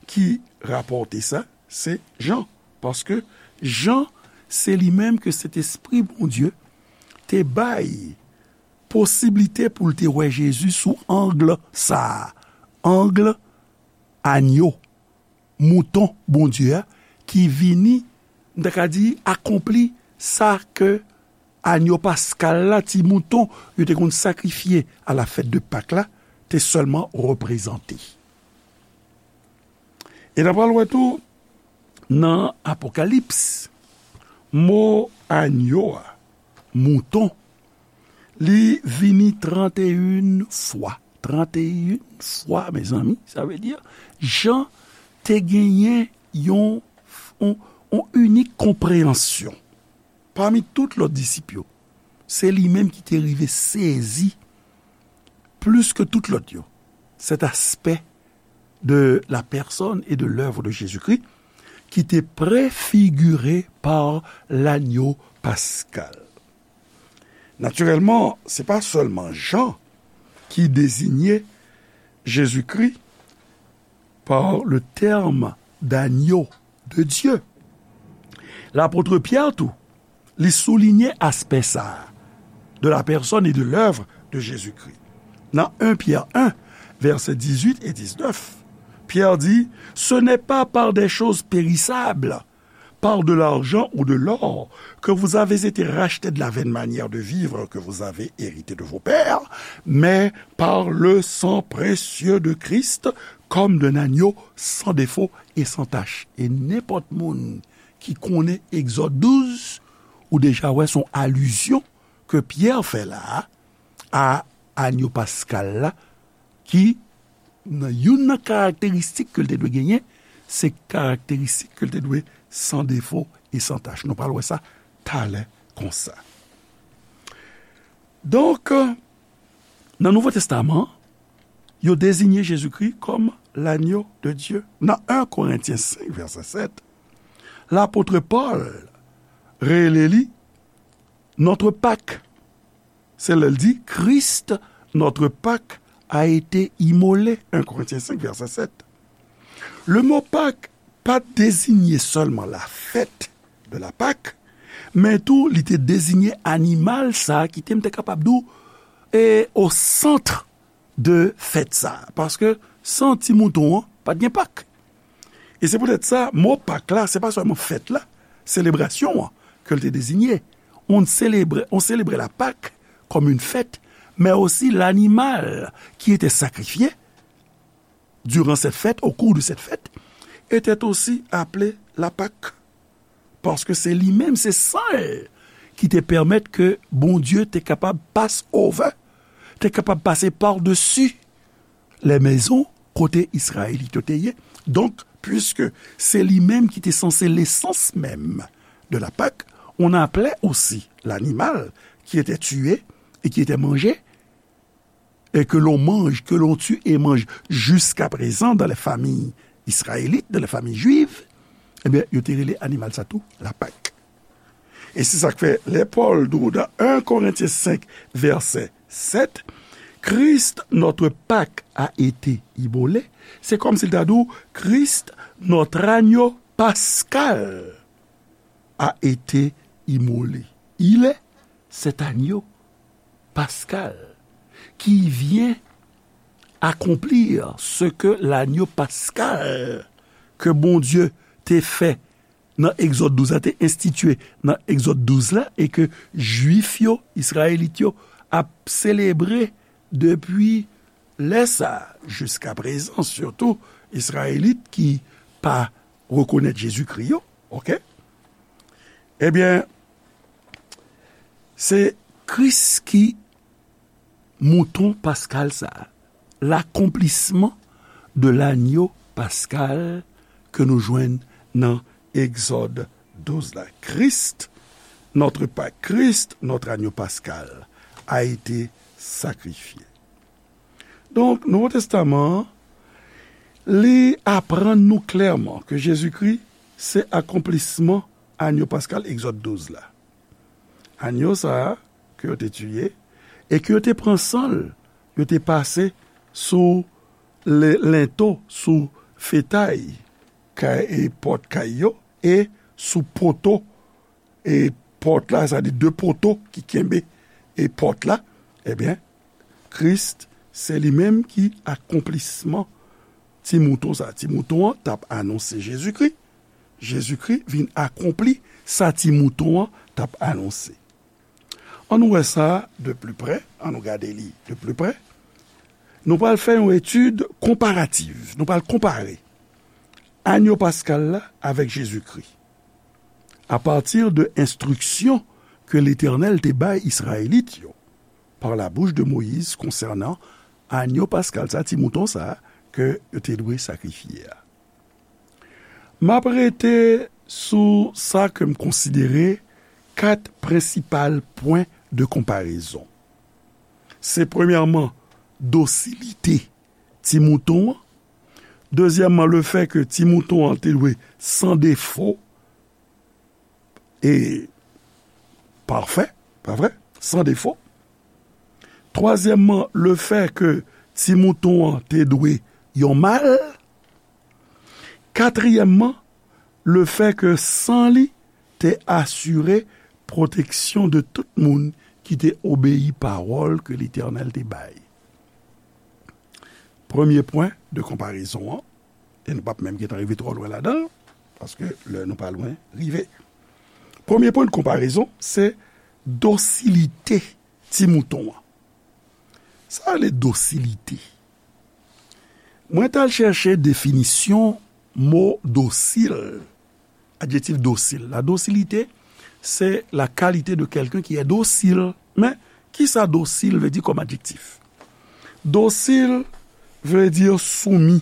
ki rapòte sa? Se Jan. Paske Jan, se li menm ke Sentespri Bondye te bay posiblite pou l te wè Jezi sou ang sa a. Ang anyo, mouton Bondye a, ki vini, m ta ka di, akonpli sa ke anyo paskal la, ti mouton yo te konn sakrifye a la fèt de Pak la, te sèlman reprezante. E n a pral wè tou, nan Apokalips, mo anyo a, mouton, li vini tranteyen fwa. Tranteyen fwa, mezanmi, sa vle di, Jan te genyen yon, yon, yon inik konpreyansyon. Pami tout lòt disip yo, se li menm ki te rive sezi plis ke tout lòt yo, cet aspect de la personne et de l'œuvre de Jésus-Christ, ki te prefigire pa lanyo paskal. Natirèlman, se pa sèlman Jan ki deziye Jezikri pa le tèm d'agneau de Dieu. Lapot Pyè tou, li soulinye aspè sa a, de la personne et de l'œuvre de Jésus-Christ. Nan en Pyè en, vèsè dizuit e diznèf, Pyè di, Ce n'est pas par des choses périssables, par de l'argent ou de l'or, que vous avez été rachetés de la vaine manière de vivre que vous avez héritée de vos pères, mais par le sang précieux de Christ, comme d'un agneau sans défaut et sans tache. E nenpòt moun ki konnen Egzòd douz, ou deja wè se yon alizyon ke Pyè fè la a, a anyo paskal la, ki nan youn nan karakteristik ke l te dwe genyen, se karakteristik ke l te dwe san defo e san tach. Nou pral wè sa talè konsa. Donk, nan Nouvo Testaman, yo deziye Jezikri kòm l'agneau de Dieu. Nan en Korentyen senk, vèsè sèt, lapot Pòl rele li notre Pâque. Se lè l di, Christ, notre Pâque, a été immolé. En Korentyen senk, vèsè sèt. Le mo Pâque pa t deziye sèlman la fèt de la Pâque, men tou li te deziye animal sa a ki te, m te kapab di w, e, au centre de fèt sa a. Paske san ti mouton an, pa t gen Pak. E se poutèt sa, mo Pak la, se pa sèlman fèt la, selebrasyon an ke l te deziye. On selebre, on selebre la Pak comme une fête, mais aussi l'animal qui était sacrifié durant cette fête, au cours de cette fête, était aussi appelé la Pâque. Paske se li menm, se san l ki te pèmèt ke Bondye te kapab pass over, te kapab pase padesi les maisons kote Izrayelit yo te ye. Donk, puiske se li menm ki te sanse lesans menm de la Pâque, on appelait aussi l'animal qui était tué et qui était mangé, et que l'on mange, que l'on tue et mange jusqu'à présent dans les familles israélites, dans les familles juives, ebyen, yo te rele animal sa tou la Pak. E se sa k fè, lè Pòl di w nan en Korentyen senk, vèsè sèt, Christ, notre Pâque, a été immolé, se kòmsi l ta di w, Christ, notre agneau pascal, a été immolé. Il est cet agneau pascal qui vient accomplir ce que l'agneau pascal que Bondye te fè nan Egzòd douz la, te enstitye nan Egzòd douz la, e ke Jwif yo, Izrayelit yo, ap selebre depi lè sa a, jiska prezan, sitou Izrayelit ki pa rekonèt Jezikri yo, oke? Ebyen, se Kris ki mouton paskal sa a, l'accomplissement de l'agneau pascal ke nou jwenn nan Egzòd douz la. Christ, notre Pâque, Christ, notre agneau pascal, a été sacrifié. Donk, Nouvo Testaman an, li aprann nou klèman ke Jezikri se akonplisman agneau pascal Egzòd douz la. Agneau sa a ke yo te tiye e ke yo te pran san l, yo te pase sou le, lento, sou fetay kay, e pòt kay yo, e sou poto, e pòt la, sa di de poto ki kenbe e pòt la, ebyen, Kris, se li menm ki akonplisman ti mouton sa. Ti mouton an t ap anonse Jezikri. Jezikri vin akonpli sa ti mouton an t ap anonse. Ann nou wè sa de pli prè, ann nou gade li de pli prè. Nou pral fè yon etid konparativ. Nou pral konpare agneau paskal la avèk Jezikri. Apati de enstriksyon ke Letènèl te bay Izrayelit yo par la bouche de Moïse concernant agneau paskal sa, ti mouton sa ke yo te dwe sakrifye a. M ap rete sou sa ke m konsidere kat prensipal pwen de konparezon. Se premyèman dosilite ti mouton an, Dezyèmman, le fè ke ti mouton an te dwe san defo e pafè, pa vre? San defo. Twazyèmman, le fè ke ti mouton an te dwe yon mal. Katriyèmman, le fè ke san li te asire pwoteksyon de tout moun ki te obeyi pawòl ke Letènèl te bay. Premye pwen de konparezon an, e nou p ap menm gentan rive twò lwen ladan l, paske lè nou pa lwen rive. Premye pwen de konparezon, se dosilite ti mouton an. Sa rele dosilite. Mwen t al chèche definisyon mo dosil, adjektif dosil. La docilité, c'est la qualité de quelqu'un qui est docile. Men, kisa dosil vle di kòm adjektif? Dosil vle di soumi.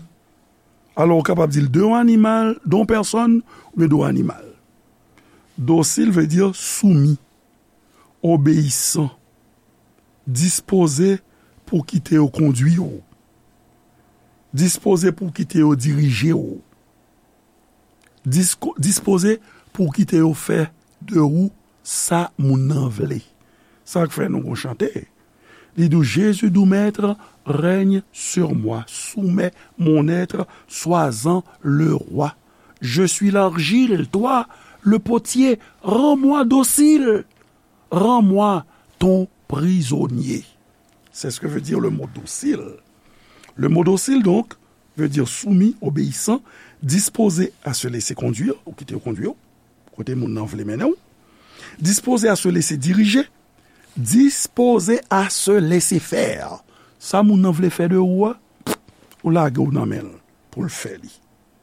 Alò, ou kapab di l de yon animal, de yon pèsòn, oubyen de yon animal. Dosil vle di soumi, obeyisan, dispoze pou kite yo kondui w, dispoze pou kite yo dirije w, disko-, dispoze pou kite yo fè de ou sa moun nan vle. Sa k fè nou gon chante. Li di w, Jésus doux maître règne sur moi, soumets mon être, sois-en le roi. Je suis l'argile, toi le potier, rends-moi docile, rends-moi ton prisonnier. C'est ce que veut dire le mot docile. Le mot docile, donc, veut dire soumis, obéissant, disposé à se laisser conduire, ou kite yo kondui w, kote moun nan vle mennen w, disposé à se laisser diriger, disposé à se laisser faire. Sa moun nan vle fè de ou a, ou lage w nan men l pou l fè li.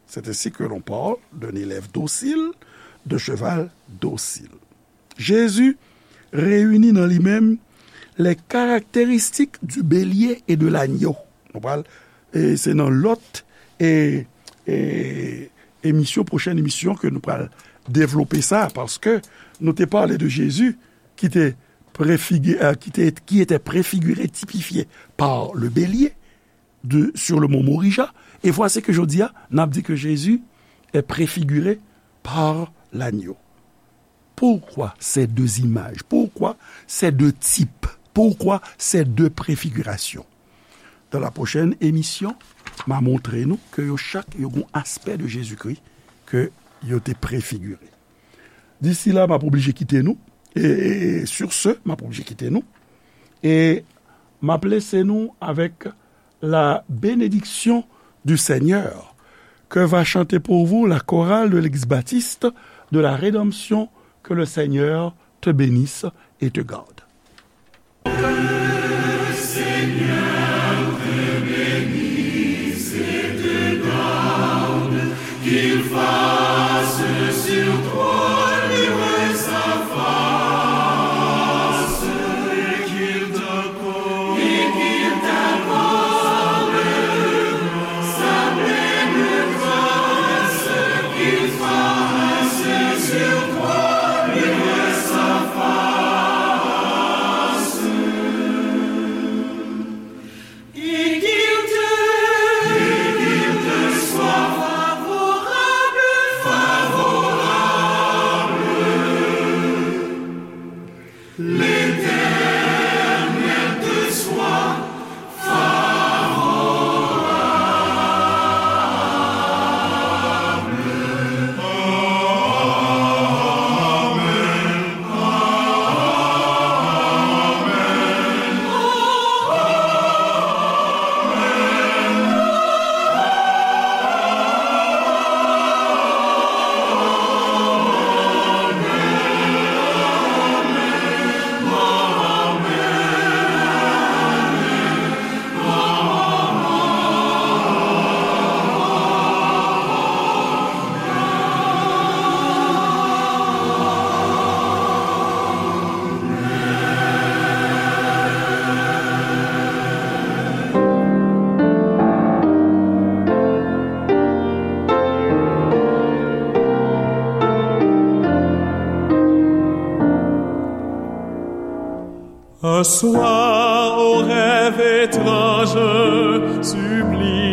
C'est ainsi que l'on parle d'un élève docile, de cheval docile. Jésus réunit dans lui-même les caractéristiques du bélier et de l'agneau. Nou pral, e se nan lòt, e, e, emisyon, pwochèn emisyon ke nou pral devlope sa, paske nou te pale de Jezi ki te prefigi-, euh, qui était, qui était préfiguré, typifié par le bélier de, sur le mont Moria. Et voici que jodi a, n ap di ke Jezi est préfiguré par l'agneau. Pourquoi ces deux images? Pourquoi ces deux types? Pourquoi ces deux préfigurations? Dans la prochaine émission, m a montre nou ke yo chak yo gon aspè de Jezikri ke yo te prefigire. D'ici là, m ap oblije kite nou. E, e, e sur ce, m ap oblije kite nou. E m ap lese nou avèk la bénédiction du Seigneur, que va chanter pour vous la chorale de l'église baptiste de la Rédemption. Que le Seigneur te bénisse et te garde. Un soir, au rêve étrange, sublime.